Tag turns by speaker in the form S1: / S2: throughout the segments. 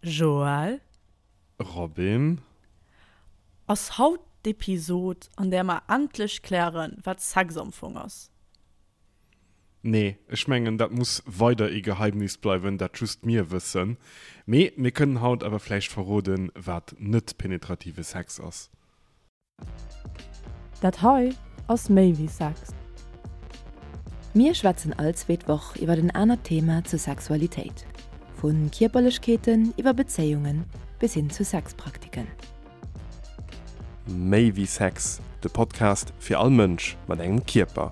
S1: Joël.
S2: Robin.
S1: Ass haut d'Episod, an där mer endlech klären, wat Sex am Fong ass?
S2: Nee, ech mengen, dat muss weider ee Geheimnis bleiwen, dat just mir wëssen. Mee mir kënnen haut awer vläicht verroden, wat net penetrative Sex ass.
S1: Dat hei ass méi wéi Sex.
S3: Mir schwätzen all zweet Woch iwwer en anert Thema zur Sexualitéit, vu Kierperlechkeeten iwwer Bezéiungen bis hin zu Sexpraktiken.
S2: Méi wéi Sex, de Podcast fir all Mënsch mat engem Kierper.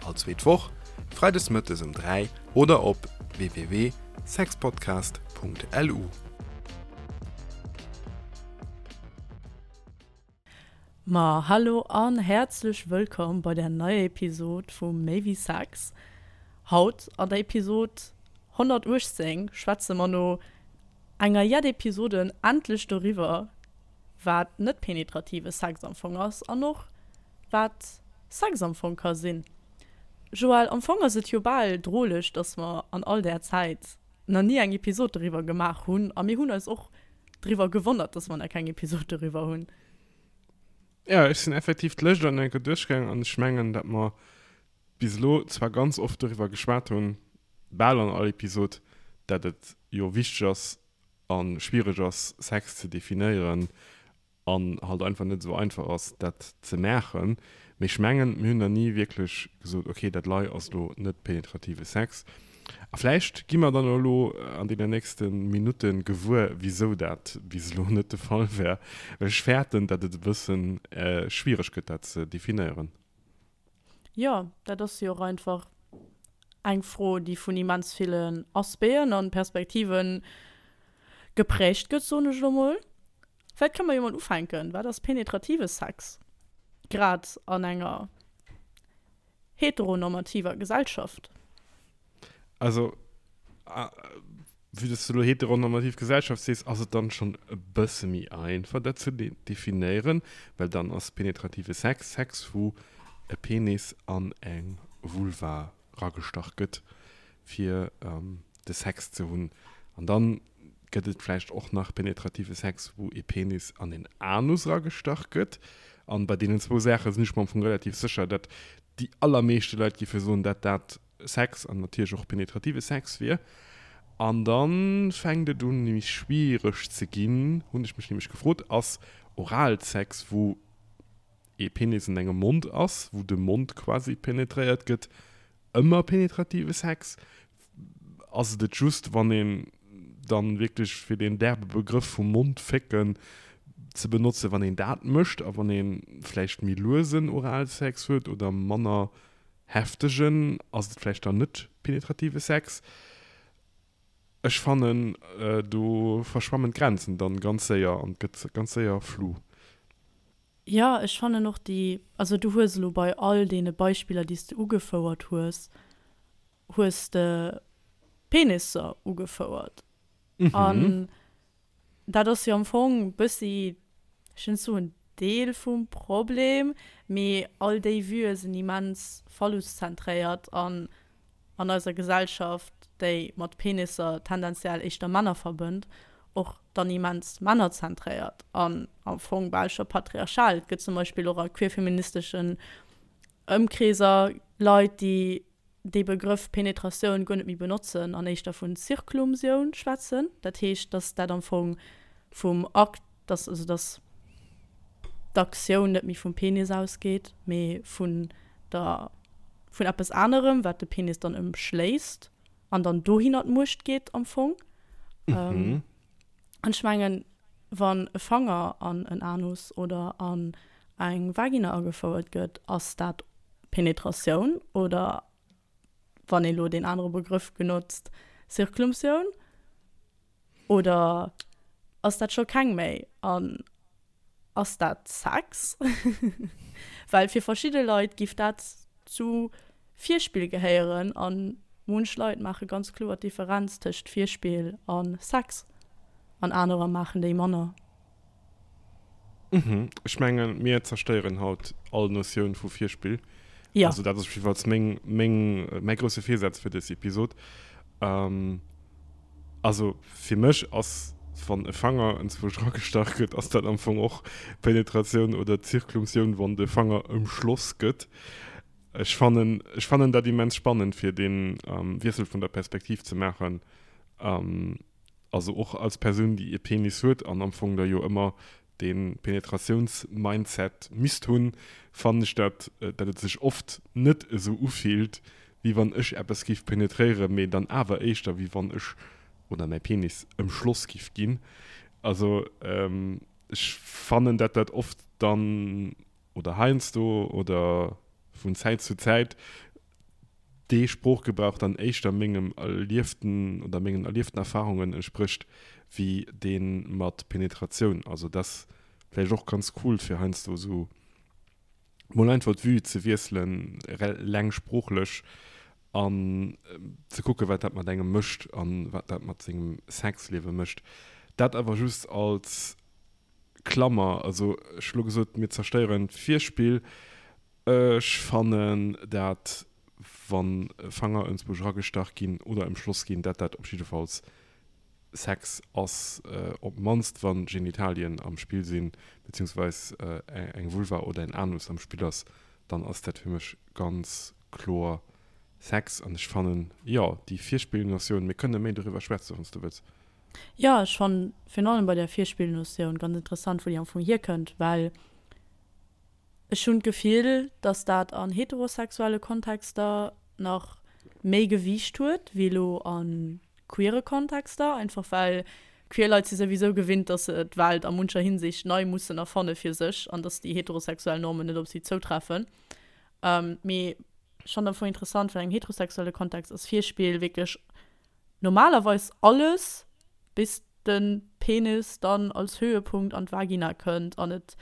S2: All zweet Woch, freides mëttes um 3 oder op www.sexpodcast.lu.
S1: Ma hallo an häerzlech wëllkomm bei der neier Episod vu Méi wéi Sex. Haut an der Episod 118 schwätze mer no enger jett Episoden endlech doriwwer, wat net penetrative Sex am Fong ass an och wat Sex am Fong ka sinn. Joël, am Fong ass et jo bal droleg, dass mer an all där Zäit nach ni eng Episod doriwwer gemaach hunn a mir hunn eis och driwwer gewonnert, dass mer nach keng Episod doriwwer hunn.
S2: Jo, ech sinn effektiv d'Lëscht an enker duerchgaang an ech mengen, dat mer bis elo zwar ganz oft doriwwer geschwat hunn, bal an all Episod, dat et jo wichteg ass a schwiereg ass, Sex ze definéieren an halt einfach net esou einfach ass dat ze maachen, mee ech mengen mir hunn nach ni wierklech gesot, ok dat lei ass elo net penetrative Sex. A vläicht gi mer dann elo an deenen nächste Minutte gewuer wisou dat bis elo net de Fall war, well ech fäerten dat et e bëssen schwiereg gëtt dat ze definéieren.
S1: Jo, dat ass jo och einfach eng Fro déi vun immens villen Aspecten an Perspektiven geprägt gëtt, soen ech elo mol. Vläit kënne mer jo mol ufänken, Wat ass penetrative Sex, grad an enger heteronormativer Gesellschaft?
S2: Also, vue dass du elo heteronormativ Gesellschaft sees, ass et dann schonn e bësse méi einfach, dat ze definéieren, well dann ass penetrative Sex Sex, wou e Penis an eng Vulva ragestach gëtt, fir de Sex ze hunn. An dann gëtt et vläicht och nach penetrative Sex, wou ee Penis an een Anus ragestach gëtt. An bei deenen zwou Saache sinn ech mer am Fong relativ sécher, datt déi allermeeschte Leit géife soen, datt dat Sex an natierlech och penetrative Sex wier. An da fänkt et un méi schwiereg ze ginn, hunn ech mech nämlech gefrot, ass Oralsex, wou ee Penis an engem Mond ass, wou de Mond quasi penetréiert gëtt, ëmmer penetrative Sex? Ass et et just, wann een dann wierklech, fir deen derbe Begrëff vum Mondfécken ze benotzen, wann een dat mécht a wann ee vläicht méi luesen Oralsex huet oder manner heftegen, ass et vläicht dann net penetrative Sex? Ech fannen, do verschwammen d'Grenzen dann ganz séier an et gëtt ganz séier flou.
S1: Jo, ech fannen och déi, also du hues elo bei all deene Beispiller, déi s de ugefouert hues, hues de Penisser ugefouert. An dat ass jo am Fong bëssi, ech wëll net soen Deel vum Problem, mee all déi Vuë sinn immens phalluszentréiert an an eiser Gesellschaft, déi mat Penisser tendenziell éischter Männer verbënnt, och dann immens männerzentréiert an am Fong bal scho patriarchal. Et gëtt zum Beispill och a queerfeministeschen Ëmkreeser Leit, déi dee Begrëff Penetratioun guer net méi benotzen an éischter vun Zirklumsioun schwätzen. Dat heescht, datt dat am Fong vum Akt, datt also datt d'Aktioun net méi vum Penis ausgeet, mee vun der vun eppes anerem, wat de Penis dann ëmschléisst an dann dohinner d'Muecht geet am Fong. Mhm. An ech mengen, wann e Fanger an en Anus oder an eng Vagina agefouert gëtt, ass dat Penetratioun oder, wann ee lo deen anere Begrëff genotzt, Zirklumsioun? Oder ass dat scho keng méi? An ass dat Sex? Well fir verschidde Leit giff dat zu Virspill gehéieren a munch Leit maache ganz kloer d'Differenz tëscht Virspill a Sex an anerer maachen déi manner.
S2: Mhm. Ech mengen, mir zerstéieren haut all Notioun vu Virspill.
S1: Jo.
S2: Also dat ass op jiddefalls meng, meng, mäi grousse Virsaz fir dës Episod. Also fir mech ass, wann e Fanger enzwousch eragestach gëtt, ass dat am Fong och Penetratioun oder Zirklumtioun, wann de Fanger ëmschloss gëtt. Ech fannen, ech fannen dat immens spannend, fir dee Wiessel vun der Perspektiv ze maachen. Also och als Persoun, déi e Penis huet an am Fong da jo ëmmer dee Penetratiouns-Mindset misst hunn, fannen ech dat, dat et sech oft net esou ufillt, wéi wann ech eppes giff penetréieren, mee dann awer éischter wéi wann ech oder mäi Penis ëmschloss giff ginn. Also ech fannen, dat dat oft dann, oder heiansdo oder vun Zäit zu Zäit, dee Sproochgebrauch dann éischter mengem erlieften oder mengen erlieften Erfahrungen entsprécht wéi dee mat Penetratioun. Also dat ass vläicht och ganz cool fir heiansdo esou mol einfach d'Vue ze wiesselen, eleng sproochlech, an ze kucke wat dat mat engem mécht an wat dat mat sengem Sexliewe mécht. Dat awer just als Klammer. Also ech hu lo gesot, mir zerstéieren d'Virspill. Ech fannen dat wann Fanger enzwousch eragestach ginn oder emschloss ginn, dat dat op jiddefalls Sex ass, op mannst wann Genitalien am Spill sinn, beziehungsweis eng Vulva oder en Anus am Spill ass, dann ass dat fir mech ganz kloer Sex. An ech fannen, jo, déi Virspillnotioun, mir kënne méi doriwwer schwätzen, wann s du wëlls.
S1: Jo, ech fannen virun allem bei der Virspillnotioun ganz interessant, wou déi am Fong hierkënnt, well Ech hunn d'Gefill, dass dat an heterosexuelle Kontexter nach méi Gewiicht huet wéi elo a queere Kontexter, einfach well queer Leit si souwisou gewinnt, dass se d'Welt a muncher Hinsicht nei mussen erfanne fir sech an dass déi heterosexuell Normen net op si zoutreffen. Mee ech fannen am Fong interessant, well an engem heterosexuelle Kontext ass Virspill wierklech normalerweis alles, bis de Penis dann als Höhepunkt an d'Vagina kënnt an et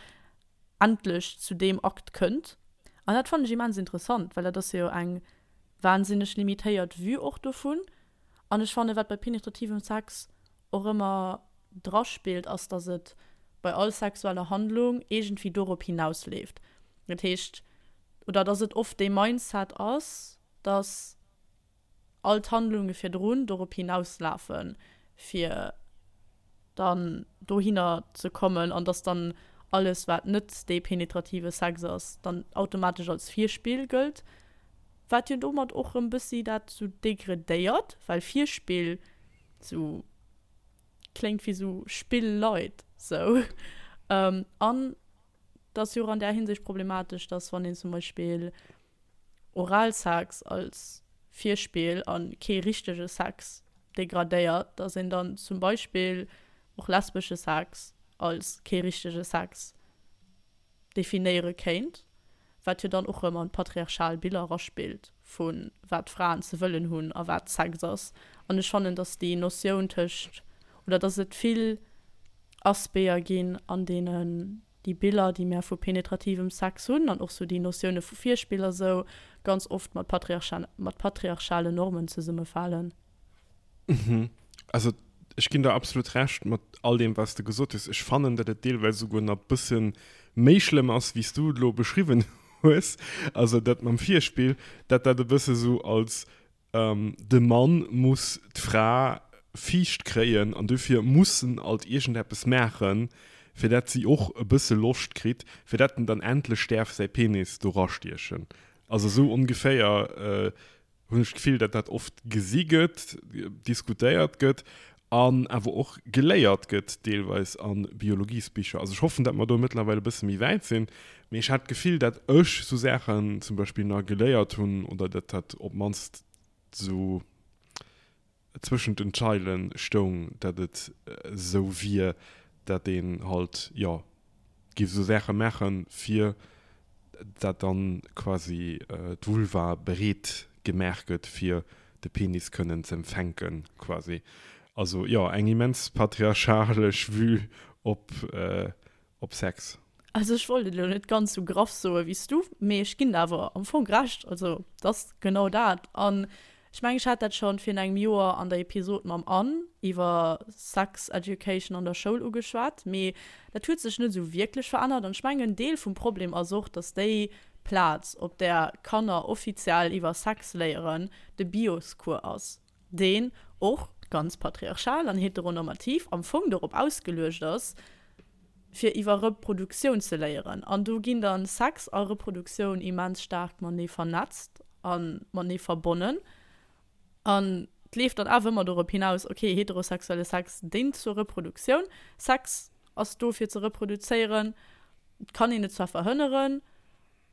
S1: endlech zu deem Akt kënnt. An dat fannen ech immens interessant, well dat ass jo eng wahnsinneg limitéiert Vue och dovun. An ech fannen, wat bei penetrativem Sex och ëmmer draspillt, ass, dass et bei all sexueller Handlung iergendwéi dorop hinausleeft. Dat heescht, oder dass et oft dee Mindset ass, dass all d'Handlunge virdrun dorop hinauslafen, fir dann dohinner ze kommen an dass dann alles, wat net dee penetrative Sex ass, dann automatesch als Virspill gëllt, wat jo domat och erëm bëssi dat sou degradéiert, well Virspill sou kléngt wéi sou Spill light sou. An et ass jo och an där Hinsicht problematesch, dass wann een zum Beispill Oralsex als Virspill a kee richtege Sex degradéiert, dass een dann zum Beispill och lesbesche Sex als kee richtege Sex definéiere kéint, wat jo dann och erëm an patriarchal Biller eraspillt vu wat Fraen ze wëllen hunn a wat Sex ass. An ech fannen, dass déi Notioun tëscht, oder dass et vill Aspecter ginn, an deenen déi Biller, déi mär vu penetrativem Sex hunn, an och sou déi Notioune vu Virspill a sou, ganz oft mat mat patriarchalen Normen zesummefalen.
S2: Mhm. Also ech ginn der absolut Recht mat all deem, wat s de gesot hues. Ech fannen, datt et deelweis esouguer nach e bësse méi schlëmm ass, wéi s du et elo beschriwwen hues. Also dat mam Virspill, datt dat e bësse sou als De Mann muss d'Fra fiicht kréien an dofir muss en alt iergendeppes maachen, fir dat si och e bësse Loscht kritt, fir dat en dann endlech däerf säi Penis do rastiechen. Also esou ongeféier hunn ech d'Gefill, dat dat oft gesi gëtt, diskutéiert gëtt an awer och geléiert gëtt deelweis a Biologiesbicher. Also ech hoffen, dat mer do mëttlerweil e bësse méi wäit sinn, mee ech hat d'Gefill, dat ech sou Saachen zum Beispill nach geléiert hunn oder dat dat op d'mannst sou zwëschent den Zeilen stoung, dat et sou wier, dat een halt, jo, géif esou Saache maachen, fir dat dann quasi d'Vulva bereet gemaach gëtt, fir de Penis kënnen z'empfänken, quasi. Also jo, eng immens patriarchalesch Vue op op Sex.
S1: Also ech wollt et elo net ganz sou graff soe wéi s du, mee ech ginn der awer am Fong Recht. Also et ass genau dat. An ech mengen, ech hat dat schonn virun engem Joer an der Episod mam Anne iwwer Sex Education an der Schoul ugeschwat, mee dat huet sech net esou wierklech verännert. An ech mengen, en Deel vum Problem ass och, dass déi Plaz, op där Kanner offiziell iwwer Sex léieren, de Bioscours ass. deen och. ganz patriarchal an heteronormativ am Fong dorop ausgeluecht ass, fir iwwer Reproduktioun ze léieren. An do ginn dann Sex a Reproduktioun immens staark matenee vernetzt a matenee verbonnen. An et leeft dann awer ëmmer dorop hinaus, okay, heterosexuelle Sex déngt zur Reproduktioun, Sex ass do fir ze reproduzéieren, et kann een et zwar verhënneren,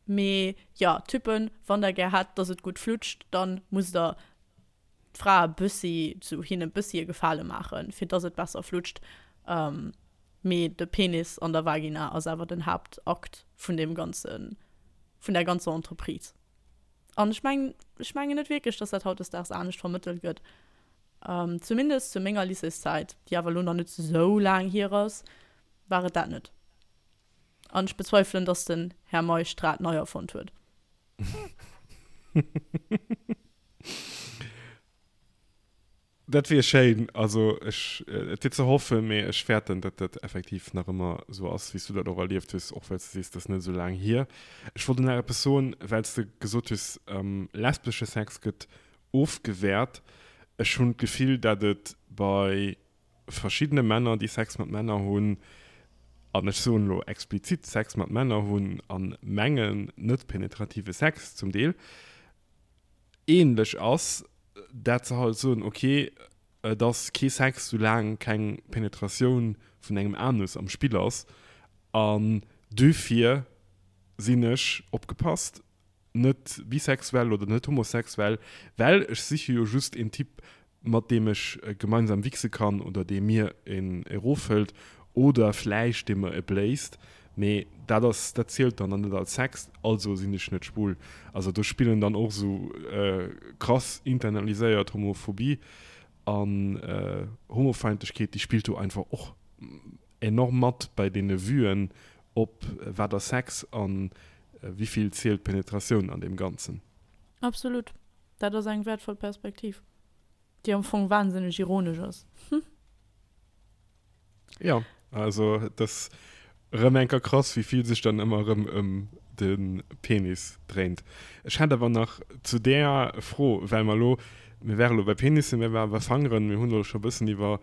S1: mee jo, Typen, wann der gär hätt, dass et gutt flutscht, dann musst der d'Frae bëssi, zu hinne bëssi e Gefale maachen, fir dass et besser flutscht. Mee de Penis an der Vagina ass awer den Haaptakt vun deem ganzen, vun där ganzer Entreprise. An ech mengen, ech mengen net wierklech, dass dat hautdesdaags anescht vermëttelt gëtt. Zumindest zu menger Lycéeszäit, déi awer elo nach net esou laang hier ass, war et dat net. An ech bezweifelen, dass den Här Meisch d'Rad nei erfonnt huet.
S2: Dat wier schéin. Also ech, et wier ze hoffen, mee ech fäerten, datt dat effektiv nach ëmmer esou ass, wéi s du dat och erlieft hues, och well s de sees, dat ass net esou laang hier. Ech wollt nach eppes soen, well s de gesot hues, lesbesche Sex gëtt ofgewäert. Ech hunn d'Gefill, datt et bei verschiddene Männer, déi Sex mat Männer hunn, an ech soen elo explizit Sex mat Männer hunn a mengen net penetrative Sex zum Deel, ähnlech ass, dat se halt soen, ok, et ass kee Sex, soulaang keng Penetratioun vun engem Anus am Spill ass, an duerfir sinn ech, opgepasst, net bisexuell oder net homosexuell, well ech siche jo just een Typ, mat deem ech gemeinsam wichse kann oder dee mir een erofhëlt oder vläicht dee mer e bléist, mee dat ass, dat zielt dann net als Sex, also sinn ech net schwul. Also do spillen dann och esou krass internaliséiert Homophobie an Homofeindlechkeet, déi spillt do einfach och enorm mat bei deene Vuen op wat ass Sex an wéivill zielt Penetratioun an deem Ganzen.
S1: Absolut. Dat ass eng wäertvoll Perspektiv, déi am Fong wahnsinneg ironesch ass. Hm.
S2: Jo, also et ass erëm eng Kéier krass, wéi vill sech dann ëmmer erëm ëm de Penis dréint. Ech hätt awer nach zu där Fro, well mer elo, mir ware elo bei Penissen, mir ware bei Fangeren, mir hunn elo scho e bëssen iwwer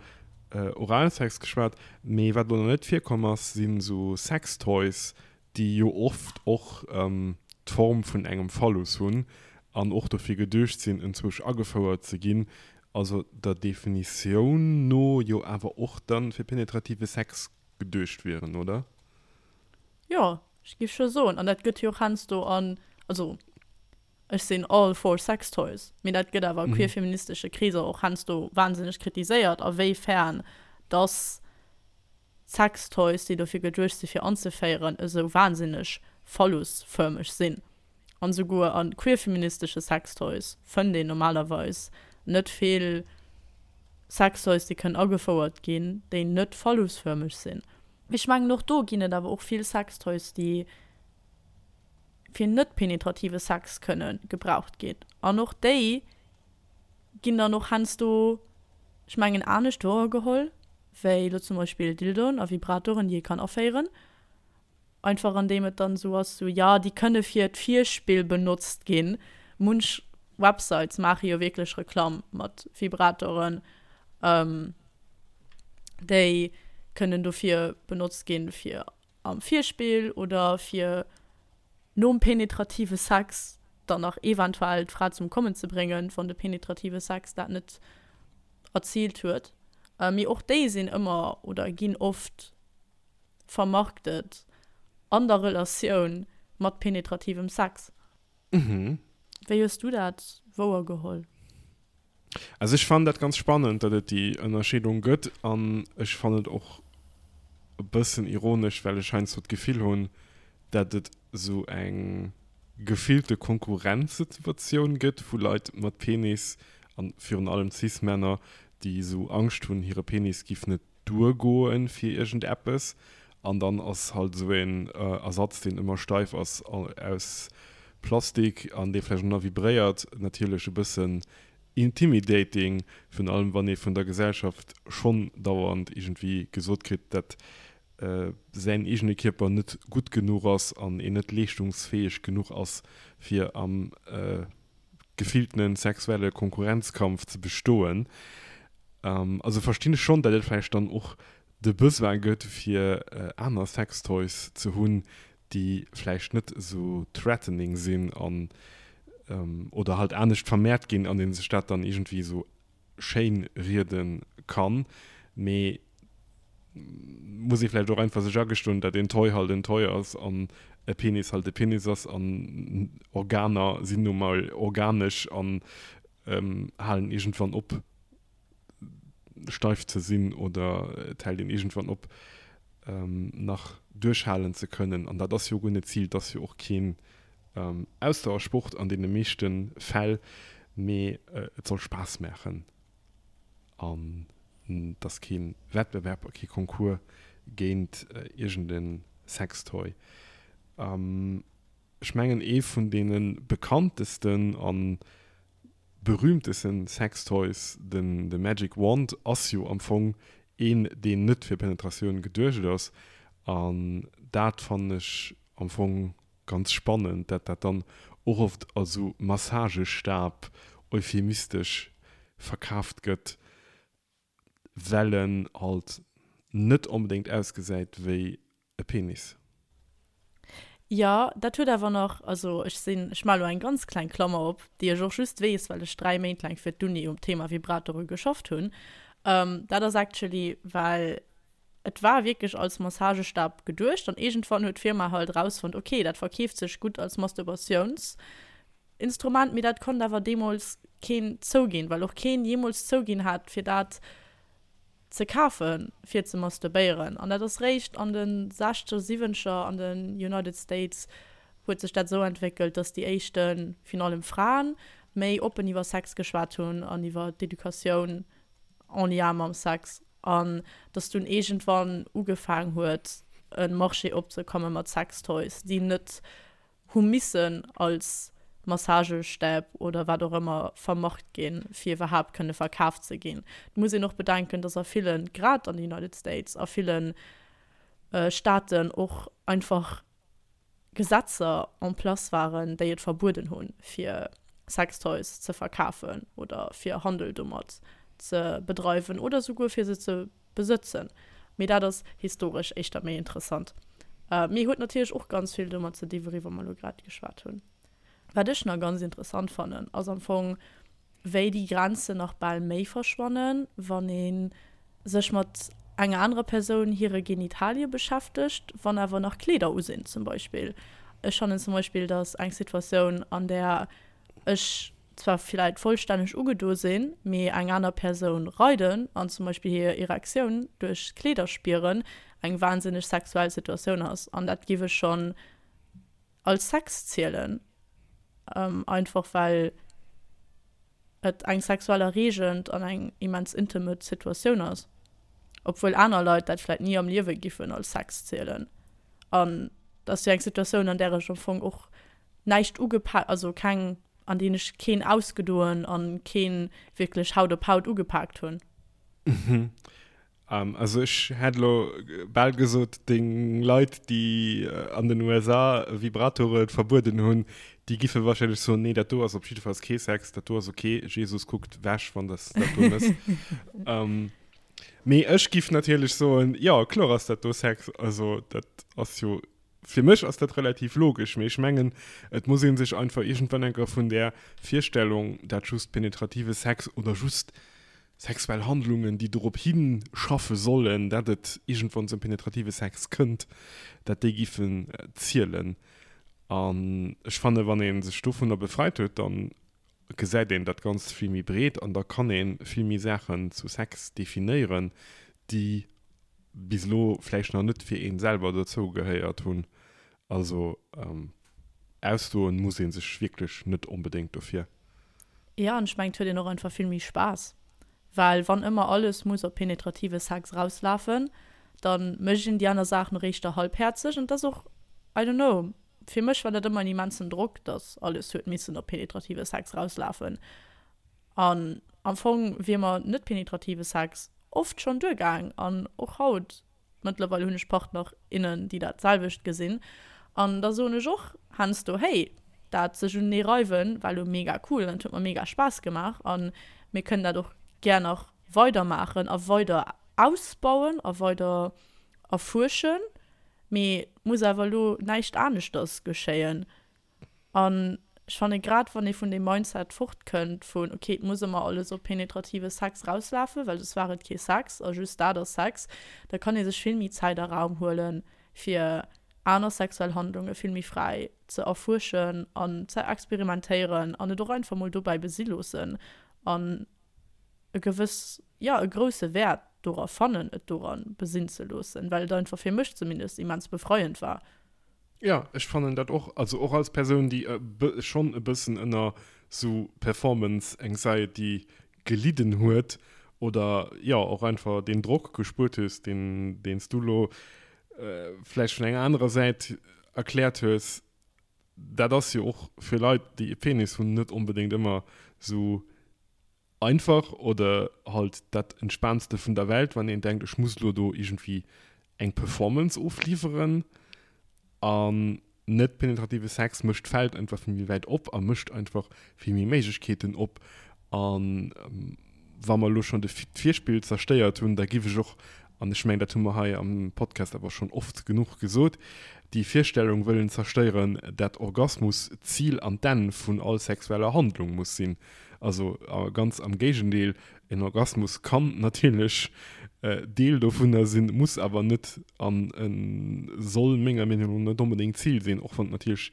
S2: Oralsex geschwat, mee wat elo nach net virkomm ass, sinn esou Sextoys, déi jo oft och d'Form vun engem Phallus hunn an och dofir geduecht sinn, enzwousch agefouert ze ginn, also der Definitioun no jo awer och dann fir penetrative Sex geduecht wieren, oder?
S1: Jo, ech géif scho soen. An dat gëtt jo och heiansdo an, also ech sinn all for Sextoys, mee dat gëtt awer a queerfeministesche Kreeser och heiansdo wahnsinneg kritiséiert, a wéi fern dass Sextoys, déi dofir geduecht si fir anzeféieren, esou wahnsinneg phallusfërmeg sinn. An esouguer a queerfeministesche Sextoys fënnt een normalerweis net vill Sextoys, déi kënnen agefouert ginn, déi net phallusfërmeg sinn. Ech mengen och do ginn et awer och vill Sextoys, déi fir net penetrative Sex kënne gebraucht ginn. An och déi ginn dann och heiansdo, ech mengen, anescht wouergeholl wéi elo zum Beispill Dildoen a Vibratoren, déi ee kann aféieren. Einfach andeem et dann esou ass, sou, jo, déi kënne fir d'Virspill benotzt ginn. Munch Websites maache jo wierklech Reklamm mat Vibratoren, déi kënnen dofir benotzt ginn, fir am Virspill oder fir nom penetrative Sex dann nach eventuell d'Fra zum Kommen ze bréngen, wann de penetrative Sex dat net erziilt huet. Mee och déi sinn ëmmer oder ginn oft vermarktet an der Relatioun mat penetrativem Sex. Wéi hues du dat wouergeholl?
S2: Also ech fannen dat ganz spannend, datt et déi Ënnerscheedung gëtt an ech fannen et och e bëssen ironesch, well ech heiansdo d'Gefill hunn, datt et esou eng gefillte Konkurrenzsituatioun gëtt vu Leit mat Penis, an virun allem Cis-Männer, déi esou Angscht hunn, hire Penis giff net duergoen fir iergend eppes an dann ass halt esou een Ersatz deen ëmmer steif ass aus Plastik an dee vläicht och nach vibréiert natierlech e bëssen intimidating, virun allem wann ee vun der Gesellschaft schonn dauernd iergendwéi gesot kritt dat säin eegene Kierper net gutt genuch ass an een net leeschtungsfäeg genuch ass fir am gefilltene sexuelle Konkurrenzkampf ze bestoen. Also verstinn ech schonn, datt et vläicht dann och de Besoin gëtt fir aner Sextoys ze hunn, déi vläicht net esou threatening sinn an oder halt anescht vermehrt ginn an ee sech dat dann iergendwéi esou schéin riede kann. Mee muss ee vläicht och einfach sech agestoen, datt een Toy halt en Toy ass an e Penis halt e Penis ass an Organer sinn nu mol organesch an halen iergendwann op steif ze sinn oder et hält een iergendwann op nach duerchhalen ze kënnen. An dat ass jo guer net d'Zil, et ass jo och keen Ausdauersport an deene meeschte Fäll, mee et soll Spaass maachen an et ass kee Wettbewerb a kee Concours géint iergend e Sextoy. Ech mengen ee vun deene bekanntesten a berühmtesten Sextoys, den de Magic Wand, ass jo am Fong een deen net fir Penetratioun geduecht ass an dat fannen ech am Fong ganz spannend, dat dat dann och oft als sou Massagestab euphemistesch verkaaft gëtt, well en halt net onbedéngt ausgesäit wéi e Penis.
S1: Jo, dat huet awer nach, also ech sinn, ech maache lo eng ganz kleng Klammer op, déi ech och just weess, well ech 3 Méint laang fir d'Uni um Thema Vibratore geschafft hunn. Dat ass actually, well et war wierklech als Massagestab geduecht an iergendwann huet d'Firma halt erausfonnt, okay, dat verkeeft sech gutt als Masturbatiounsinstrument, mee dat konnt awer deemools keen zouginn, well och keen jeemools zouginn hat, fir dat ze kafen, fir ze masturbéieren. An dat ass réischt an de sechzeger, siwwenzeger an den United States huet sech dat esou entwéckelt, dass déi éischten, virun allem Fraen, méi oppen iwwer Sex geschwat hunn an iwwer d'Educatioun en lien mam Sex. An dass dunn iergendwann ugefaang huet, e Marché opzekomme mat Sextoys, déi net hu missen als Massagestäb oder wat och ëmmer vermarkt ginn, fir iwwerhaapt kënne verkaaft ze ginn. Et muss een och bedenken, dass a villen, grad an de United States, a ville Staaten och einfach Gesetzer en place waren, déi et verbueden hunn, fir Sextoys ze verkafen oder fir Handel domat ze bedreiwen oder souguer fir se ze besëtzen. Mee dat ass historesch éischter méi interessant. Mee huet natierlech och ganz vill domat ze di wouriwwer mer elo grad geschwat hunn. Wat ech nach ganz interessant fannen, ass am Fong, wéi déi Grenzen nach bal méi verschwannen, wann ee sech mat enger anerer Persoun hire Genitalie beschäftegt, wann awer nach Kleeder u sinn zum Beispill. Ech fannen zum Beispill, datt eng Situatioun, an där ech zwar villäit vollstänneg ugedo sinn, mee eng aner Persoun reiden an zum Beispill hir Erektioun duerch d'Kleeder spieren, eng wahnsinneg sexuell Situatioun ass. An dat giff ech schonn als Sex zielen, einfach well et eng sexuell erreegend an eng immens intimate Situatioun ass, obwuel aner Leit dat vläit ni am Liewe giffen als Sex zielen. An dat ass jo eng Situatioun, an där ech am Fong och näischt ugepak, also keng, an deen ech keen ausgedoen an keen wierklech Haut op Haut ugepaakt hunn.
S2: Mhm. Also ech hätt elo bal gesot, deng Leit, déi an den USA Vibratore verbueden hunn, déi giffe wahrscheinlech soen, nee, dat do ass op jiddefalls kee Sex, dat do ass ok, Jesus kuckt wech, wann s dat do mëss. Mee ech giff natierlech soen, jo, kloer ass dat do Sex, also dat ass jo Fir mech ass dat relativ logesch, mee ech mengen, et muss ee sech einfach iergendwann eng Kéier vun där Virstellung, dat just penetrative Sex oder just sexuell Handlungen, déi dorop hischaffe sollen, dat et iergendwann zum penetrative Sex kënnt, dat déi giffen zielen. An ech fanne wann ee sech dovunner befreit huet, da gesäit een dat Ganzt vill méi breet an da kann ee vill méi Saachen zu Sex definéieren, déi bis elo vläicht nach net fir een selwer dozou gehéiert hunn. Also ausdoen muss ee sech wierklech net onbedéngt dofir.
S1: Jo, an ech mengen et huet een och einfach vill méi Spaass, well wann ëmmer alles muss op penetrative Sex erauslafen, da mécht een déi aner Saachen och éischter halbhäerzeg an et ass och, I don't know, fir mech war dat ëmmer en immensen Drock, dass alles huet missen op penetrative Sex erauslafen an am Fong wier mer net penetrative Sex oft schonn duergaang an och haut, mëttlerweil hunn ech Partner, innen, déi dat selwecht gesinn an da soen ech och heiansdo, hey, dat sech unenee reiwen war elo mega cool an et huet mer mega Spaass gemaach an mir kënnen dat och gär nach. Weidermaachen a weider ausbauen a weider erfuerschen, mee et muss awer elo näischt aneschters geschéien. An ech fanne grad wann ee vun deem Mindset fortkënnt vun ok et muss ëmmer alles op penetrative Sex rauslafen, well soss war et kee Sex a just dat ass Sex, da kann ee sech vill méi Zäit a Raum huelen, fir aner sexuell Handlunge vill méi fräi ze erfuerschen an ze experimentéieren an et och einfach mol dobäi besi loossen an e gewëss, jo, e grousse Wäert dora fannen, et doran besinn ze loossen, well et einfach fir mech zumindest immens befreiend war.
S2: Jo, ech fannen dat och, also och als Persoun, déi schonn e bëssen ënner sou Performance Anxiety gelidden huet oder jo och einfach deen Drock gespuert hues, deen deen s du lo vläicht vun enger anerer Säit erkläert hues. Dat ass jo och fir Leit, déi e Penis hunn, net onbedéngt ëmmer sou einfach oder halt dat entspaantste vun der Welt, wann een denkt, ech muss elo do iergendwéi eng Performance ofliwweren. An net penetrative Sex mécht d'Feld einfach vill méi wäit op a mécht einfach vill méi Méiglechkeeten op. A wa mer elo schonn de d'Virspill zerstéiert hunn, da giff ech och, an ech mengen, dat hu mer hei am Podcast awer schonn oft genuch gesot, déi Virstellung wëllen zerstéieren, dat Orgasmus d'Zil an d'Enn vun all sexueller Handlung muss sinn. Also ganz am Géigendeel, en Orgasmus kann natierlech Deel dovunner sinn, muss awer net an soll menger Meenung no net onbedéngt d'Zil sinn, och wann et natierlech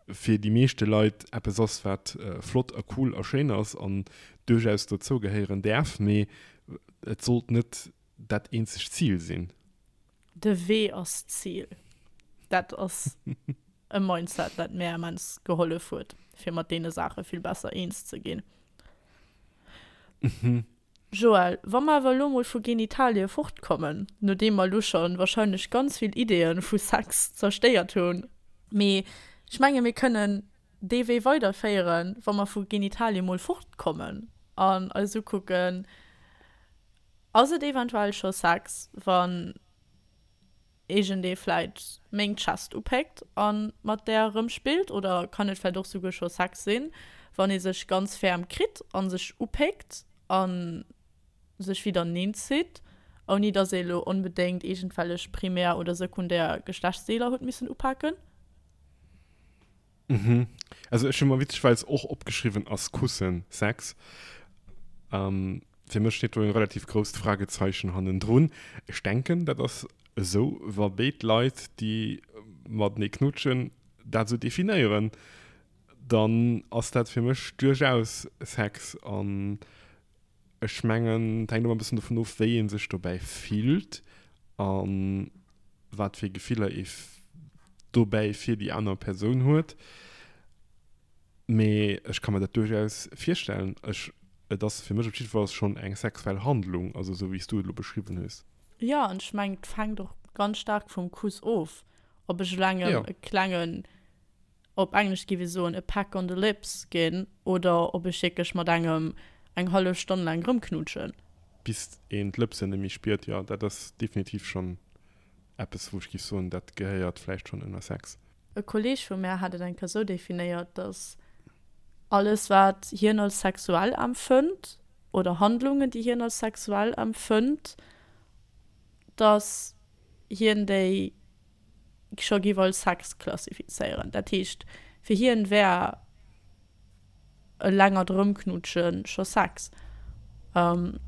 S2: fir déi meeschte Leit eppes ass, wat flott a cool a schéin ass an duerchaus dozou gehéieren däerf, mee et sollt net dat eenzegt Zil sinn.
S1: De Wee ass d'Zil. Dat ass e Mindset, dat mär immens gehollef huet, fir mat deene Saache vill besser eens ze ginn. Joël, wa mer awer elo mol vu Genitalie fortkommen, nodeem mer elo scho wahrscheinlech ganz vill Ideeë vu Sex zerstéiert hunn, mee ech menge mir kënnen dee Wee weiderféieren, wa mer vu Genitalie mol fortkommen an eis ukucken, Ass et eventuell scho Sex, wann iergendee vläit meng Chest upéckt a mat där erëmspillt? Oder kann et vläit och souguer scho Sex sinn, wann ee sech ganz ferm kritt a sech upéckt a sech widerneen zitt, ouni datt ee lo onbedéngt iergendwellech primär oder sekundär Geschlechtsdeeler huet missen upaken?
S2: Mhm. Also ech hu mer witzegerweis och opgeschriwwen, ass Kussen Sex? Ähm, fir mech steet do en relativ grousst Fragezeichen hannendrun. Ech denken, dat ass esou, wa béid Leit, déi matenee knutschen, dat esou definéieren, dann ass dat fir mech duerchaus Sex. An ech mengen, et hänkt ëmmer e bëssen dovun of, wéi ee sech dobäi fillt a wat fir Gefiller ee dobäi fir déi aner Persoun huet. Mee ech ka mer dat duerchaus virstellen. Ech, et ass fir mech op jiddefalls schonn eng sexuell Handlung, also esou wéi s du et elo beschriwwen hues.
S1: Jo, an ech mengen, et fänkt och ganz staark vum Kuss of, ob ech elo engem e klengen op Englesch géif ee soen, a peck on the lips ginn oder ob ech wierklech mat engem eng hallef Stonn laang rëmknutschen.
S2: Bis een d'Lëpsen net méi spiert, jo, dat ass definitiv schonn eppes, wou ech géif soen, dat gehéiert vläicht schonn ënner Sex.
S1: E Kolleeg vu mär hat et eng Kéier sou definéiert, dass alles wat hien als sexuell empfënnt oder Handlungen, déi hien als sexuell empfënnt, dass hien déi scho giff als Sex klassifizéieren. Dat heescht, fir hien wär e längert Rëmknutschen scho Sex. An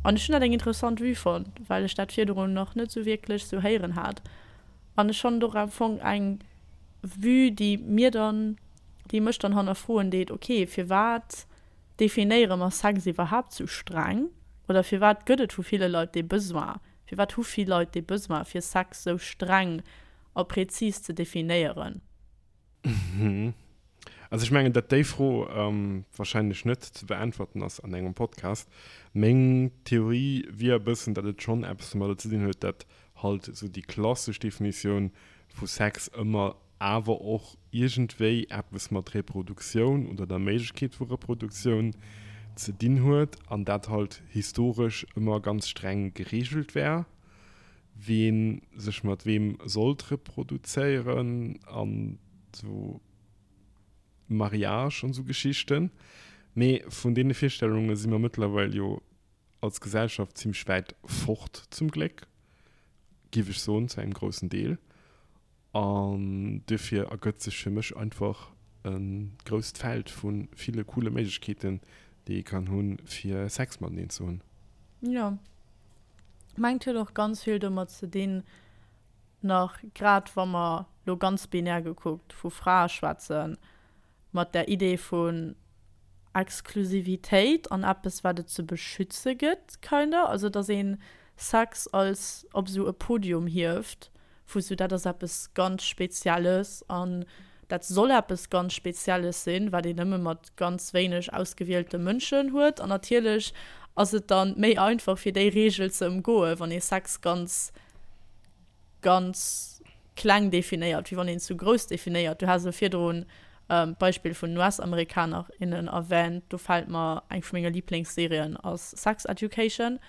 S1: ech hunn dat eng interessant Vue fonnt, well ech dat virdrun nach net sou wierklech sou héieren hat. An ech fannen et och am Fong eng Vue, déi mir dann, déi mech dann hannerfroen deet, ok, firwat definéiere mer Sex iwwerhaapt sou streng? Oder firwat gëtt et vu ville Leit dee Besoin? Firwat hu vill Leit dee Besoin, fir Sex sou streng a präzis ze definéieren?
S2: Also ech mengen, datt déi Fro warscheinlech net ze beäntwerten ass an engem Podcast. Meng Theorie wier e bëssen, datt et schonn eppes domadder ze dinn huet, datt halt esou déi klassesch Definitioun vu Sex ëmmer awer och iergendwéi eppes mat Reproduktioun oder der Méiglechkeet vu Reproduktioun ze dinn huet an dat halt historesch ëmmer ganz streng gereegelt war, ween sech mat weem sollt reproduzéieren an sou Mariage an sou Geschichten. Mee vun deene Virstellunge si mer mëttlerweil jo. als Gesellschaft zimmlech wäit fort, zum Gléck, giff ech soen, zu engem groussen Deel. An duerfir ergëtt sech fir mech einfach e grousst Feld vu ville coole Méiglechkeeten, déi ee kann hunn, fir Sex mateneen ze hunn.
S1: Jo, mengt huet och ganz vill domat ze dinn, nach grad wa mer lo ganz binär gekuckt vu Frae schwätzen, mat der Idee vun Exklusivitéit an eppes wat et ze beschütze gëtt kinda, also dass een Sex als op esou e Podium hieft vu sou dat ass eppes ganz Spezielles an dat soll eppes ganz Spezielles sinn, wat een nëmme mat ganz wéineg ausgewielte Mënschen huet an natierlech ass et dann méi einfach fir déi Reegel ze ëmgoe wann ee Sex ganz ganz kleng definéiert, wéi wann een zu grouss definéiert. Du has elo virdrun d'Beispill vun den US-Amerikaner, innen erwähnt. Do fält mer eng vu menge Liblingsserien ass Sex Education.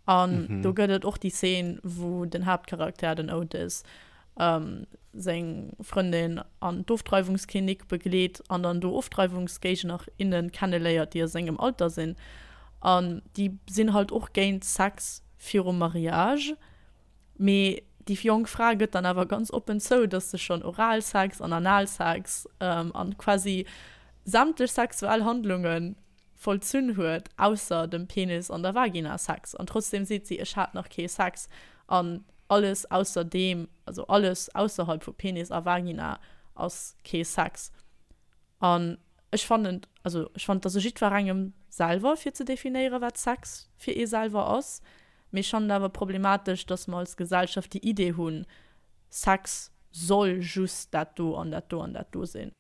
S1: An do gëtt et och déi Zeen, wou den Haaptcharakter, den Otis, seng Frëndin an d'Ofdreiwungsklinik begleet an dann do Ofdreiwungsgéigner, innen kenneléiert, déi a sengem Alter sinn. An déi sinn halt och géint Sex virum Mariage. Mee déi jonk Fra gëtt dann awer ganz oppen zou, dass se schonn Oralsex an Analsex an quasi sämtlech sexuell Handlunge vollzunn huet, ausser dem Penis an der Vagina-Sex. An trotzdem seet si, ech hat nach kee Sex. An alles ausser deem, also alles ausserhalb vu Penis a Vagina ass kee Sex. An ech fannen, also ech fannen, et ass u jiddwerengem selwer fir ze definéieren, wat Sex fir ee selwer ass. Mee ech fannen et awer problematesch, dass mer als Gesellschaft déi Idee hunn, Sex soll just dat do an dat do an dat do sinn.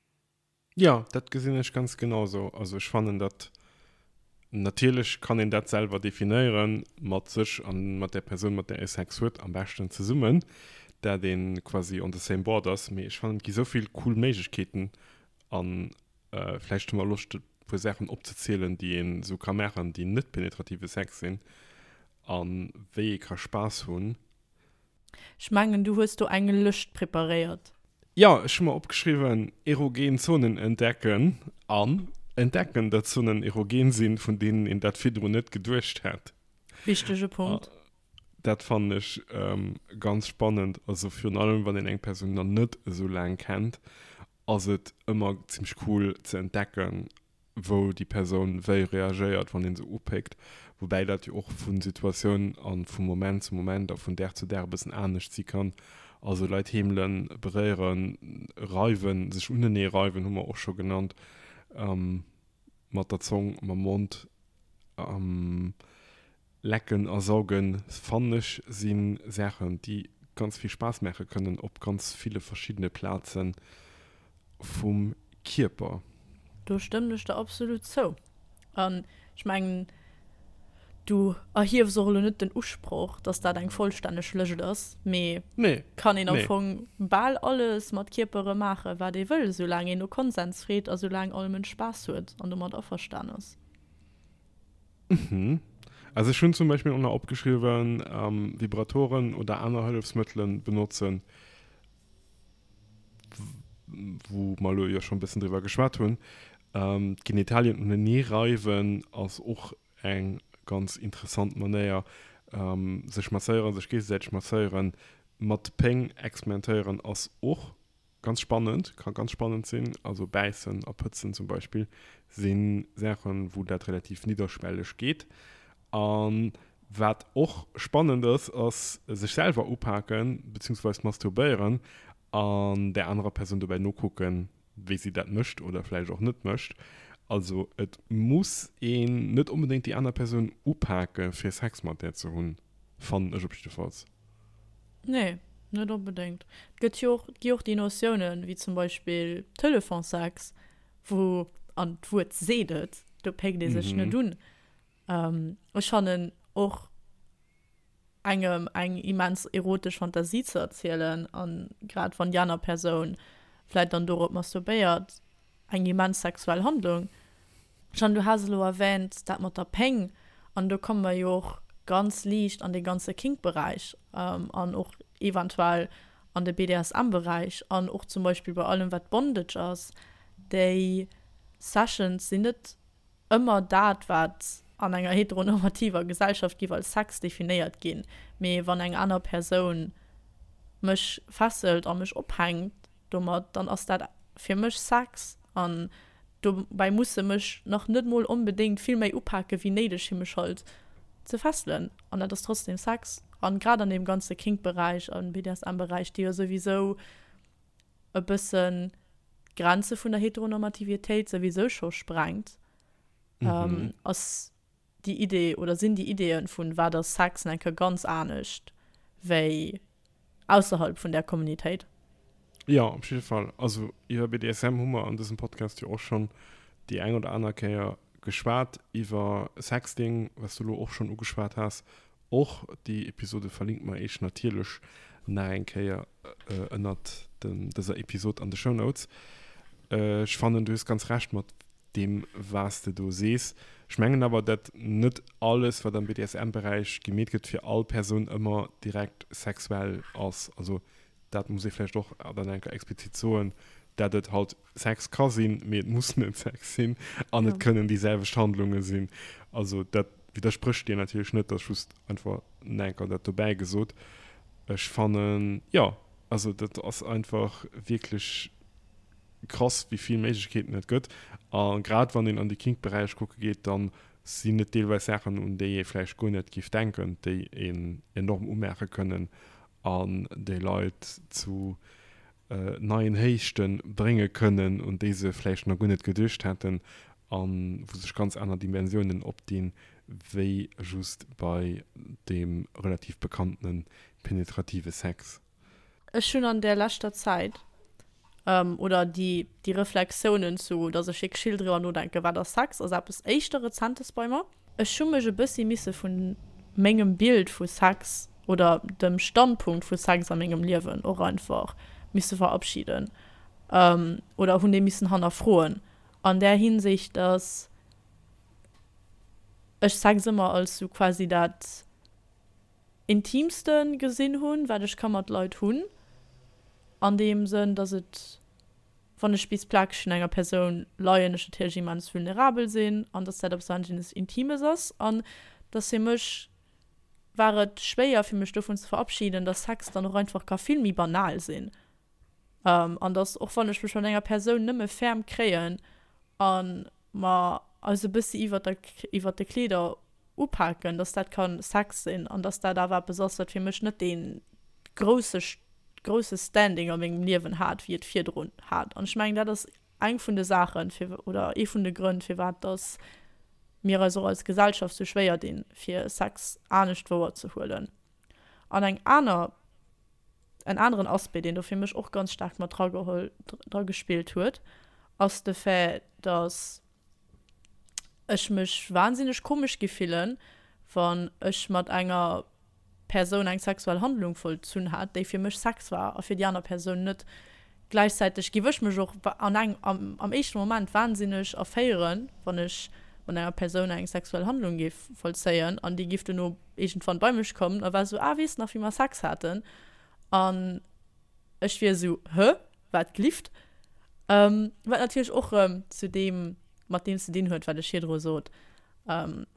S2: Jo, dat gesinn ech ganz genau esou. Also ech fannen dat, natierlech kann een dat selwer definéieren, mat sech a mat där Persoun, mat där ee Sex huet, am beschten zesummen, dat ee quasi on the same board ass. Mee ech fannen, et gi sou vill cool Méiglechkeeten an vläicht hu mer Loscht e puer Saachen opzezielen, déi een esou ka maachen, déi net penetrative Sex sinn a wéi ee ka Spaass hunn.
S1: Ech mengen, du hues do eng Lëscht preparéiert.
S2: Jo, ech hu mer opgeschriwwen, erogen Zonen entdecken an entdecken, datt Zonen erogen sinn, vun deenen een dat virdrun net geduecht hätt.
S1: Wichtege Punkt.
S2: Dat fannen ech ganz spannend. Also virun allem, wann een eng Persoun nach net esou laang kennt, ass et ëmmer zimmlech cool ze entdecken, wou déi Persoun wéi reagéiert, wann een se upéckt. Woubäi dat jo och vu Situatioun a vu Moment zu Moment a vun Dag zu Dag e bëssen anescht si kann. Also Leit heemelen, beréieren, reiwen, sech unenee reiwen hu mer och scho genannt, mat der Zong, mam Mond. Lecken a saugen, fannen ech, si Saachen, déi ganz vill Spaass maache kënnen op ganz ville verschiddene Plaze vum Kierper.
S1: Do stëmmen ech der absolut zou. An ech mengen, du erhiefs och elo net den Usproch, dass dat eng vollstänneg Lëscht ass, mee
S2: Nee,
S1: kann een am
S2: nee.
S1: Fong bal alles mat Kierpere maachen, wat ee wëll, soulaang een no Konsens freet a soulaang all Mënsch Spaass huet an domat averstan ass.
S2: Mhm. Also ech hunn zum Beispill och nach opgeschriwwen, Vibratoren oder aner Hëllefsmëttelen benotzen, wou mer elo jo schonn e bëssen driwwer geschwat hunn. D'Genitalien unenee reiwen ass och eng ganz interessant Manéier. Sech masséieren, sech géigesäiteg masséieren, mat Péng experimentéieren ass och Ganz spannend, ka ganz spannend sinn. Also bäissen a pëtzen zum Beispill si Saachen, wou dat relativ nidderschwelleg geet. A wat och spannend ass, ass sech selwer upaken, beziehungsweis masturbéieren an där anerer Persoun dobäi nokucken, wéi si dat mécht oder vläicht och net mécht. Also et muss een net onbedéngt déi aner Persoun upake fir Sex mat där ze hunn, fannen ech op jiddefalls.
S1: Nee, net onbedéngt. Et gëtt jo och, et gi och déi Notiounen, wéi zum Beispill Telefonsex, wou, an d'Wuert seet et, do péckt ee sech net un. Ech fannen och engem eng immens erotesch Fantasie ze erzielen, a grad wann déi aner Persoun vläit dann dorop masturbéiert, eng immens sexuell Handlung. Jeanne, du has elo erwähnt, dat mat der Péng, an do komme mer jo och ganz liicht an dee ganze Kink-Beräich an och eventuell an de BDSM-Beräich an och zum Beispill bei allem wat Bondage ass, déi Sessions sinn net ëmmer dat wat. an enger heteronormativer Gesellschaft giff als Sex definéiert ginn, mee wann eng aner Persoun mech fesselt a mech ophänkt domat, dann ass dat fir mech Sex an dobäi muss se mech nach net mol onbedéngt vill méi upake wéi néideg fir mech halt ze fesselen an dat ass trotzdem Sex. An grad an deem ganze Kink-Beräich an BDSM-Beräich, déi jo souwisou e bëssen d'Grenze vun der Heteronormativitéit souwisou scho sprengt, ass déi Idee oder sinn déi Ideeën vun wat ass Sex nach eng Kéier ganz anescht wéi ausserhalb vun där Kommunitéit.
S2: Jo, op jidde Fall. Also iwwer BDSM hu mer an dësem Podcast jo och schonn déi eng oder aner Kéier geschwat, iwwer Sexting, wat s du elo och schonn ugeschwat has. Och déi Episode verlinke mer iech natierlech nach eng Kéier ënnert dëser Episod an de Shownotes. Ech fannen, du hues ganz Recht mat deem was de do sees. Ech mengen awer dat net alles wat am BDSM-Beräich gemeet gëtt fir all Persoun ëmmer direkt sexuell ass. Also dat muss ee vläicht och dann eng Kéier explizit soen, dat et halt Sex ka sinn, mee et muss net Sex sinn an et kënnen déi selwecht Handlunge sinn. Also dat widdersprécht dir natierlech net, dat ass just einfach eng Kéier dat dobäi gesot. Ech fannen, jo, also dat ass einfach wierklech krass wéi vill Méiglechkeeten et gëtt a grad wann een an de Kink-Beräich kucke geet, dann sinn et deelweis Saachen un déi ee vläicht guer net géif denken, déi een enorm umaache kënnen an déi Leit zu neien Héichte brénge kënnen, un déi se vläicht nach guer net geduecht hätten a wou sech ganz aner Dimensiounen opdinn, wéi just bei deem relativ bekanntene penetrative Sex.
S1: Ech hunn an där leschter Zäit, oder déi déi Reflexiounen zu, datt ech wierklech vill driwwer nodenken, wat ass Sex, ass eppes éischter Rezentes bei mer. Ech hu mech e bëssi misse vu mengem Bild vu Sex oder dem Standpunkt vu Sex a mengem Liewen och einfach misse verabschieden oder hunn dee missen hannerfroen an där Hinsicht, datt ech Sex ëmmer als sou quasi dat Intiimste gesinn hunn, wat ech ka mat Leit hunn, an deem Sënn, dass et, wann ech bis plakeg vun enger Persoun leien, ech natierlech immens vulnerabel sinn an dass dat eppes wahnsinnes Intimes ass an dass fir mech war et schwéier fir mech dovun ze verabschieden, dass Sex dann och einfach ka vill méi banal sinn an dass och wann ech mech mat enger Persoun nëmme ferm kréien a mer eis e bëssi iwwert der iwwert de Kleeder upaken, dass dat ka Sex sinn an dass dat awer eppes ass, wat fir mech net dee grousse grousse Standing a mengem Liewen hat, wéi et virdrun hat. An ech mengen, dat ass eng vun de Saachen, fir oder ee vun de Grënn, firwat dass mir eis och als Gesellschaft sou schwéier dinn, fir Sex anescht wouerzehuelen. An eng aner, en aneren Aspect, deen do fir mech och ganz staark mat drageholl, dragespillt huet, ass de Fait, dass ech mech wahnsinneg komesch gi fillen, wann ech mat enger Persoun eng sexuell Handlung vollzunn hat, déi fir mech Sex war a fir déi aner Persoun net. Gläichzäiteg giff ech mech och an eng, am, am éischte Moment wahnsinneg erféieren, wann ech mat enger Persoun eng sexuell Handlung géif vollzéien an déi giff dono iergendwann bei mech kommen a war esou, ah, weess nach wéi mer Sex haten? An ech wier esou, hë? Wat glift? Wat natierlech och erëm zu deem, mat deem ze dinn huet, wat ech virdru sot,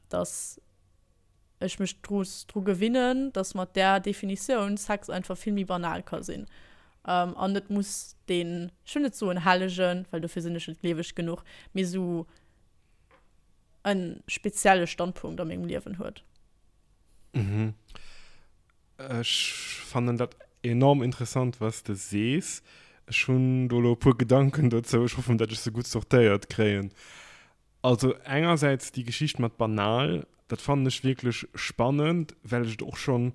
S1: dass ech mech dru dru gewinnen, dass mat där Definitioun Sex einfach vill méi banal ka sinn an net muss deen, ech wëll net soen hellegen, well dofir sinn ech net gleeweg genuch, mee esou e spezielle Standpunkt a mengem Liewen huet.
S2: Mhm. Ech fannen dat enorm interessant, was de sees. Ech hunn do elo e puer Gedanken dozou. Ech hoffen, dat ech se gutt sortéiert kréien. Also engersäits déi Geschicht mat banal, dat fannen ech wierklech spannend, well ech et och schonn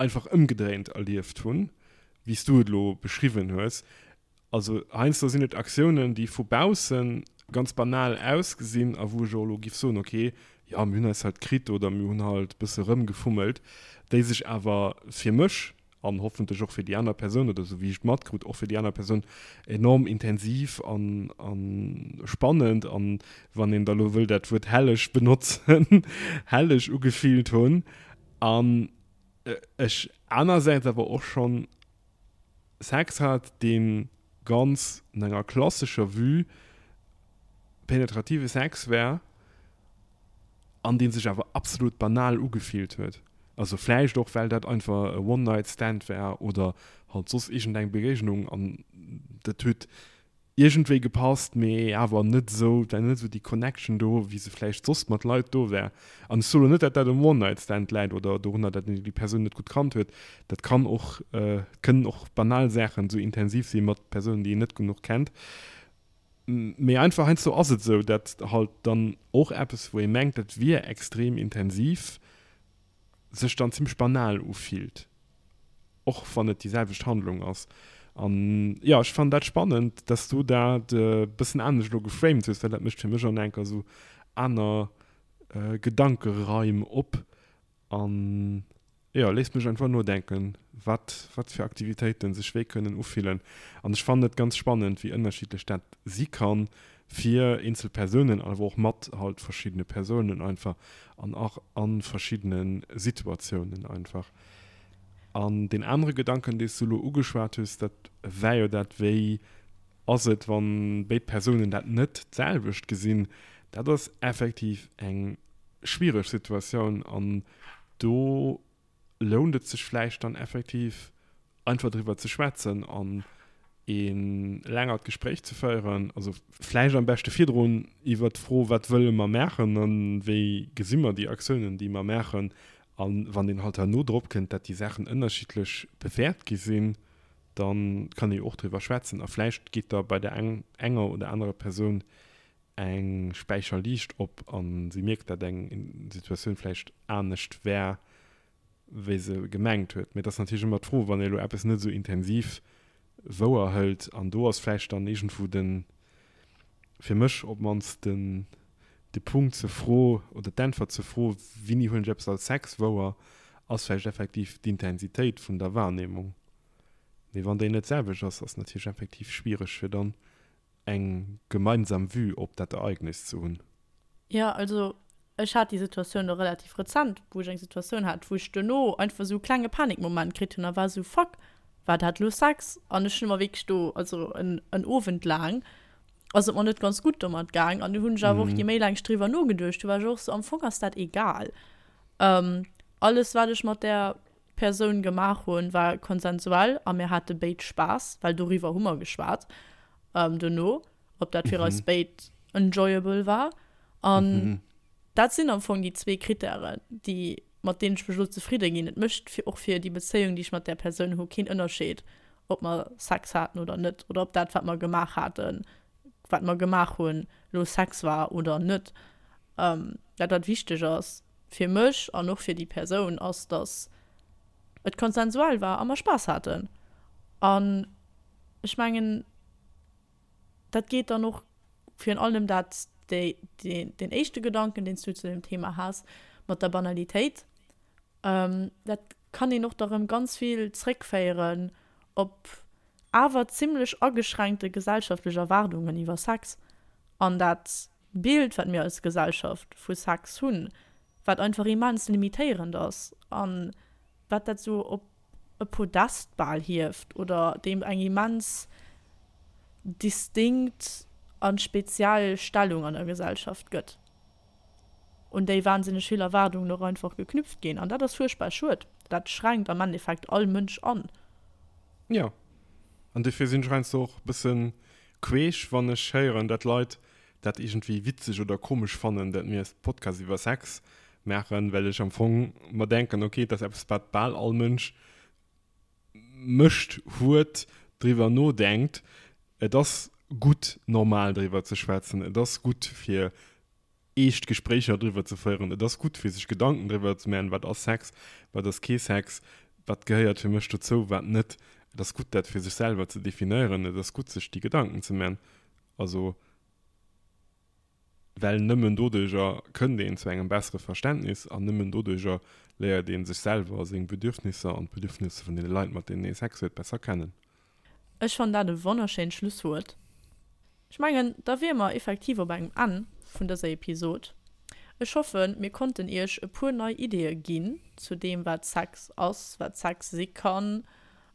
S2: einfach ëmgedréint erlieft hunn, wéi s du et elo beschriwwen hues. Also heiansdo sinn et Aktiounen, déi vu bausse ganz banal ausgesinn a wou ech och elo giff soen, ok, jo mir hunn eis halt kritt oder mir hunn halt bësse rëmgefummelt, déi sech awer fir mech an hoffentlech och fir déi aner Persoun oder esou wéi ech et matkrut och fir déi aner Persoun enorm intensiv an a spannend an, wann een da lo wëll dat Wuert helleg benotzen, helleg ugefillt hunn. An ech anersäits awer och schonn Sex hat, dee ganz no enger klassescher Vue penetrative Sex war. An dee sech awer absolut banal ugefillt huet. Also vläicht och well dat einfach e One-Night-Stand war oder halt soss iergendeng Begéignung an dat huet iergendwéi gepasst, mee awer net esou, et war net esou déi Connection do, wéi se vläicht soss mat Leit do wär. An ech soen elo net, datt dat um One-Night-Stand läit oder dorunner, datt een déi Persoun net gutt kannt huet. Dat kann och, kënnen och banal Saachen esou intensiv si mat Persounen, déi een net genuch kennt. Mee einfach heiansdo ass et esou, datt halt dann och eppes, wou ee mengt, dat wier extrem intensiv, sech dann zimmlech banal ufillt, och wann et déi selwecht Handlung ass. An jo, ech fannen dat spannend, dass du dat e bëssen anescht elo geframed hues, well dat mécht fir mech och nach eng Kéier esou aner Gedankeraim op. An jo, léisst mech einfach nodenken, wat wat fir Aktivitéiten sech wéi kënnen ufillen. An ech fannen et ganz spannend, wéi ënnerschiddlech dat si kann fir eenzel Persounen, awer och mat halt verschiddene Persounen einfach an och a verschiddene Situatiounen einfach. An deen anere Gedanken, dee s du elo ugeschwat hues, dat war jo dat, wéi ass et, wann béid Persounen dat net d'selwecht gesinn? Dat ass effektiv eng schwiereg Situatioun an do lount et sech vläicht dann effektiv einfach driwwer ze schwätzen an e längert Gespréich ze féieren, also vläicht am beschte virdrun iwwert d'Fro, wat wëlle mer maachen a wéi gesi mer déi Aktiounen, déi mer maachen, a wann een halt herno drop kënnt, dat déi Saachen ënnerschiddlech bewäert gi sinn, da kann ee jo och driwwer schwätzen a vläicht geet da bei der enger oder anerer Persoun eng Späicherliicht op a si mierkt, dat eng Situatioun vläicht anescht war, wéi se gemengt huet. Mee et ass natierlech ëmmer d'Fro, wann ee elo eppes net esou intensiv wouer hëlt, an do ass vläicht dann iergendwou den, fir mech op d'mannst, den de Punkt zur Fro oder d'Äntwert zur Fro, Wéini huelen ech eppes als Sex wouer, ass vläicht effektiv d'Intensitéit vun der Wahrnehmung. Mee wann déi net d'selwecht ass, ass natierlech effektiv schwiereg, fir dann eng gemeinsam Vue op dat Ereignis ze hunn.
S1: Jo, also ech hat déi Situatioun elo relativ rezent, wou ech eng Situatioun hat, wou ech duerno einfach esou e klenge Panikmoment kritt hunn a war esou, Fuck, war dat elo Sex? An ech hunn mer wierklech do, also en en Owend laang ass et mer net ganz gutt domat gaang an du hunn ech awer och, je méi laang ech driwwer nogeduecht hu, war ech och esou, am Fong ass dat egal. Alles wat ech mat där Persoun gemaach hunn, war konsensuell a mir hate béid Spaass, well doriwwer hu mer geschwat dono, ob dat fir eis béid enjoyable war. An dat sinn am Fong déi zwee Krittären, déi, mat deenen ech mech elo zefridde ginn. Et mécht fir och fir déi Bezéiung, déi ech mat där Persoun hu, keen Ënnerscheed, ob mer Sex haten oder net oder ob dat, wat mer gemaach haten, wat mer gemaach hunn, elo Sex war oder net. Dat, wat wichteg ass, fir mech an och fir déi Persoun ass, dass et konsensuell war a mer Spaass haten. An ech mengen, dat geet dann och virun allem dat, déi, deen éischte Gedanken, deen s du zu deem Thema has, mat der Banalitéit, dat kann een och da rëm ganz vill zréckféieren op awer zimlech ageschränkte gesellschaftlech Erwaardungen iwwer Sex an dat Bild, wat mir als Gesellschaft vu Sex hunn, wat einfach immens limitéierend ass a wat dat esou op e Podest bal hieft oder deem eng immens distinkt a speziell Stellung an der Gesellschaft gëtt, un déi wahnsinneg vill Erwaardungen och einfach geknüpft ginn. An dat ass fuerchtbar schued. Dat schränkt am Endeffekt all Mënsch an.
S2: Jo, an dofir sinn ech heiansdo och e bësse queesch, wann ech héieren, dat Leit dat iergendwéi witzeg oder komesch fannen, dat mir e Podcast iwwer Sex maachen, well ech am Fong mer denken, ok, et ass eppes, wat bal all Mënsch mécht, huet, driwwer nodenkt. Et ass gutt, normal driwwer ze schwätzen. Et ass gutt, fir eescht Gespréicher driwwer ze féieren. Et ass gutt, fir sech Gedanken driwwer ze maachen, wat ass Sex, wat ass kee Sex, wat gehéiert fir mech dozou, wat net. Et ass gutt, dat fir sech selwer ze definéieren. Et ass gutt, sech déi Gedanken ze maachen. Also, well nëmmen doduerjer kënnt een zu engem bessere Verständnis an nëmmen doduerjer léiert ee sech selwer, seng Bedürfnisser an d'Bedürfnisser vun deene Leit, mat deenen ee Sex huet, besser kennen.
S1: Ech fannen dat e wonnerschéint Schlusswuert. Ech mengen, da wier mer effektiv op engem Enn vun dëser Episod. Ech hoffen, mir konnten iech e puer nei Ideeë ginn zu deem, wat Sex ass, wat Sex si kann,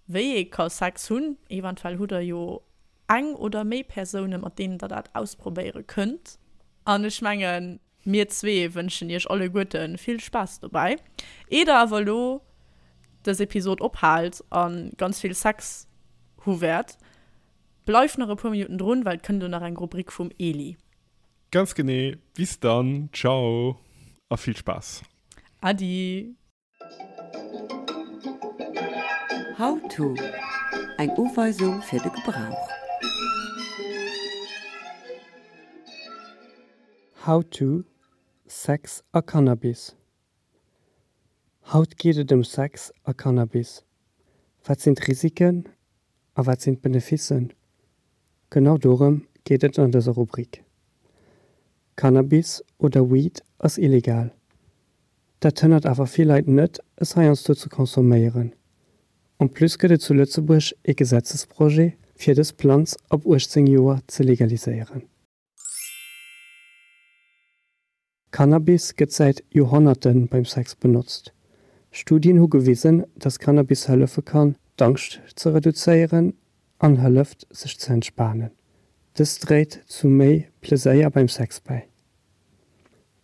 S1: wéi ee ka Sex hunn. Eventuell hutt der jo eng oder méi Persounen, mat deenen der dat ausprobéiere kënnt. An ech mengen. Mir zwee wënschen iech alleguerte vill Spaass dobäi. Eer der awer elo dës Episod ophaalt a ganz vill Sex hu wäert, bleift nach e puer Minutten drun, well et kënnt elo nach eng Rubrik vum Eli.
S2: Ganz genee. Bis dann. Ciao a vill Spaass.
S1: Adi.
S3: How to, Eng Uweisung fir de Gebrauch.
S4: How to, Sex a Cannabis Haut geet et ëm Sex a Cannabis. Wat sinn d'Risiken a wat sinn d'Beneficen? Genau dorëm geet et an dëser Rubrik. Cannabis oder Weed ass illegal. Dat hënnert awer vill Leit net, es heiansdo ze consomméieren. En plus gëtt et zu Lëtzebuerg ee Gesetzesprojet, fir dës Planz ab 18 Joer ze legaliséieren. Cannabis gëtt säit Joerhonnerte beim Sex benotzt. Studien hu gewisen, dass Cannabis hëllefe kann, d'Angscht ze reduzéieren an hëlleft, sech ze entspanen. Dëst dréit zu méi Pleséier beim Sex bäi.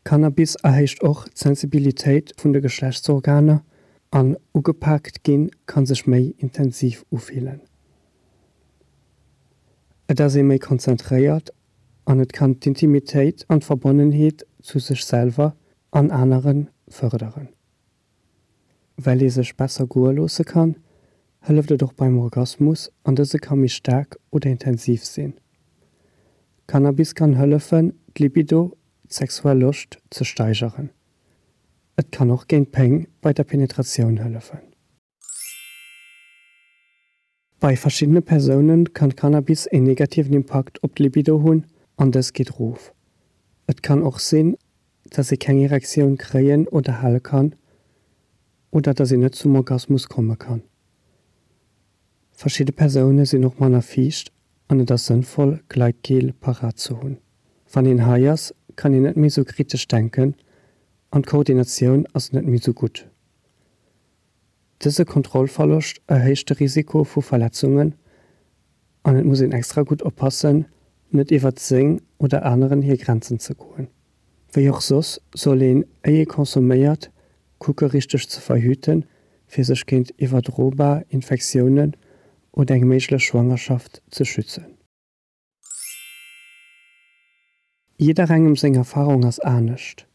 S4: Cannabis erhéicht och d'Sensibilitéit vun de Geschlechtsorganer an ugepaakt ginn kann sech méi intensiv ufillen. Et ass ee méi konzentréiert an et kann d'Intimitéit an d'Verbonnenheet zu sech selwer an anere fërderen. Well ee sech besser goe loosse kann, hëlleft et och beim Orgasmus an dëse ka méi staark oder intensiv sinn. Cannabis kann hëllefen, d'Libido, d'sexuell Loscht, ze steigeren. Et kann och géint Péng bei der Penetratioun hëllefen. Bei verschiddene Persoune kann Cannabis een negativen Impakt op d'Libido hunn an dës geet rof. Et kann och sinn, dass ee keng Erektioun kréien oder hale kann oder dass een net zum Orgasmus komme kann. Verschidde Persoune sinn och manner fiicht an et ass sënnvoll Gleitgel parat ze hunn. Wann een high ass, kann een net méi sou kritesch denken an d'Koordinatioun ass net méi sou gutt. Dëse Kontrollverloscht erhéicht de Risiko vu Verletzungen an et muss een extra gutt oppassen, net iwwert seng oder aneren hir Grenzen ze goen. Wéi och soss soll een, éi ee consomméiert, kucke richteg ze verhüten, fir sech géint iwwerdrobar Infektiounen oder eng méiglech Schwangerschaft ze schützen. Jidderengem seng Erfarung ass anescht.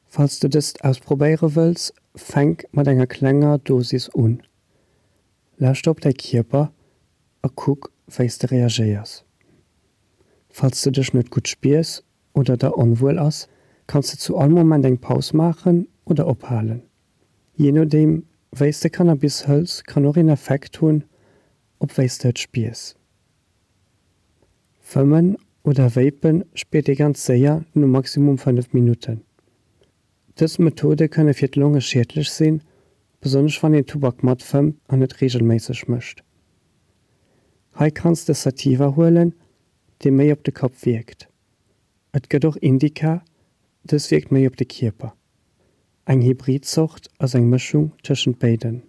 S4: Falls de dëst ausprobéiere wëlls, fänk mat enger klenger Dosis un. Lauschter op däi Kierper a kuck wéi s de reagéiers. Falls de dech net gutt spiers oder der onwuel ass, kanns de zu all Moment eng Paus maachen oder ophalen. Jee nodeem wéi s de Cannabis hëls kann och een Effekt hunn op wéi s de et spiers. Fëmmen oder Vapen spiert ee ganz séier no maximum 5 Minutten. Dës Methode kënne fir d'Longe schiedlech sinn, besonnesch wann een Tubak matfëmmt an et reegelméisseg mécht. Hei kanns de Sativa huelen, dee méi op de Kapp wierkt. Et gëtt och Indica, dës wierkt méi op de Kierper. Eng Hybrid-Zort ass eng Mëschung tëschent béiden.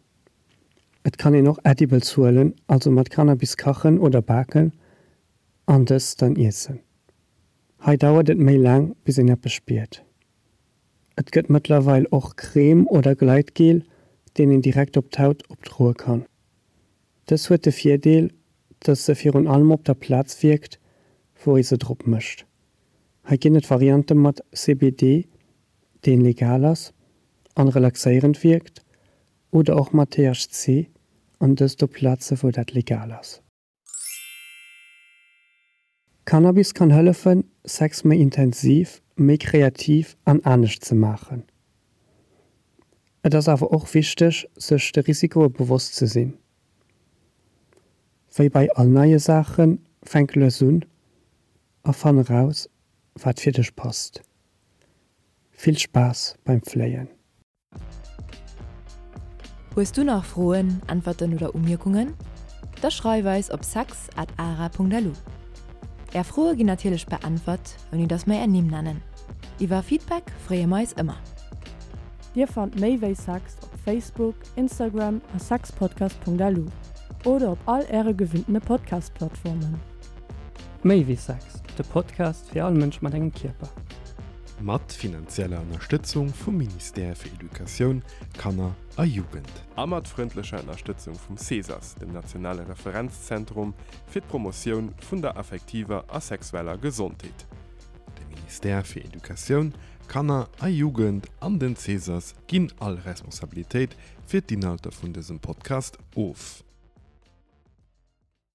S4: Et kann een och Edibles huelen, also mat Cannabis kachen oder baken an dës dann iessen. Hei dauert et méi laang bis een eppes spiert. Et gëtt mëttlerweil och Crème oder Gleitgel, deen een direkt op d'Haut opdroe kann. Dës huet de Virdeel, dass se virun allem op der Plaz wierkt, wou ee se drop mécht. Hei ginn et Variante mat CBD, deen legal ass an relaxéierend wierkt, oder och mat THC, an dëst op Plaze wou dat legal ass. Cannabis kann hëllefen, Sex méi intensiv, méi kreativ an anescht ze maachen. Et ass awer och wichteg, sech de Risikoe bewosst ze sinn. Wéi bei all neie Saachen, fänk lues un a fann eraus, wat fir dech passt. Vill Spaass beim Fléien!
S3: Hues du nach Froen, Äntwerten oder Umierkungen? Da schreif eis op sex at ara.lu. Är Froe ginn natierlech beäntwert, ouni dass mer är Nimm nennen. Iwwer Feedback freeë mer eis ëmmer.
S1: Dir fannt méi wéi Sex op Facebook, Instagram a sexpodcast.lu oder op all äre gewinntene Podcast-Plattformen.
S4: Méi wéi Sex, de Podcast fir all Mënsch mat engem Kierper.
S2: Mat finanzieller Ënnerstëtzung vum Ministère fir Educatioun, Kanner a Jugend.
S5: A mat frëndlecher Ënnerstëtzung vum CESAS, dem nationale Referenzzentrum fir d'Promotioun vun der affektiver a sexueller Gesondheet.
S2: De Ministère fir Educatioun, Kanner a Jugend an den CESAS ginn all Responsabilitéit fir d'Inhalter vun dësem Podcast of.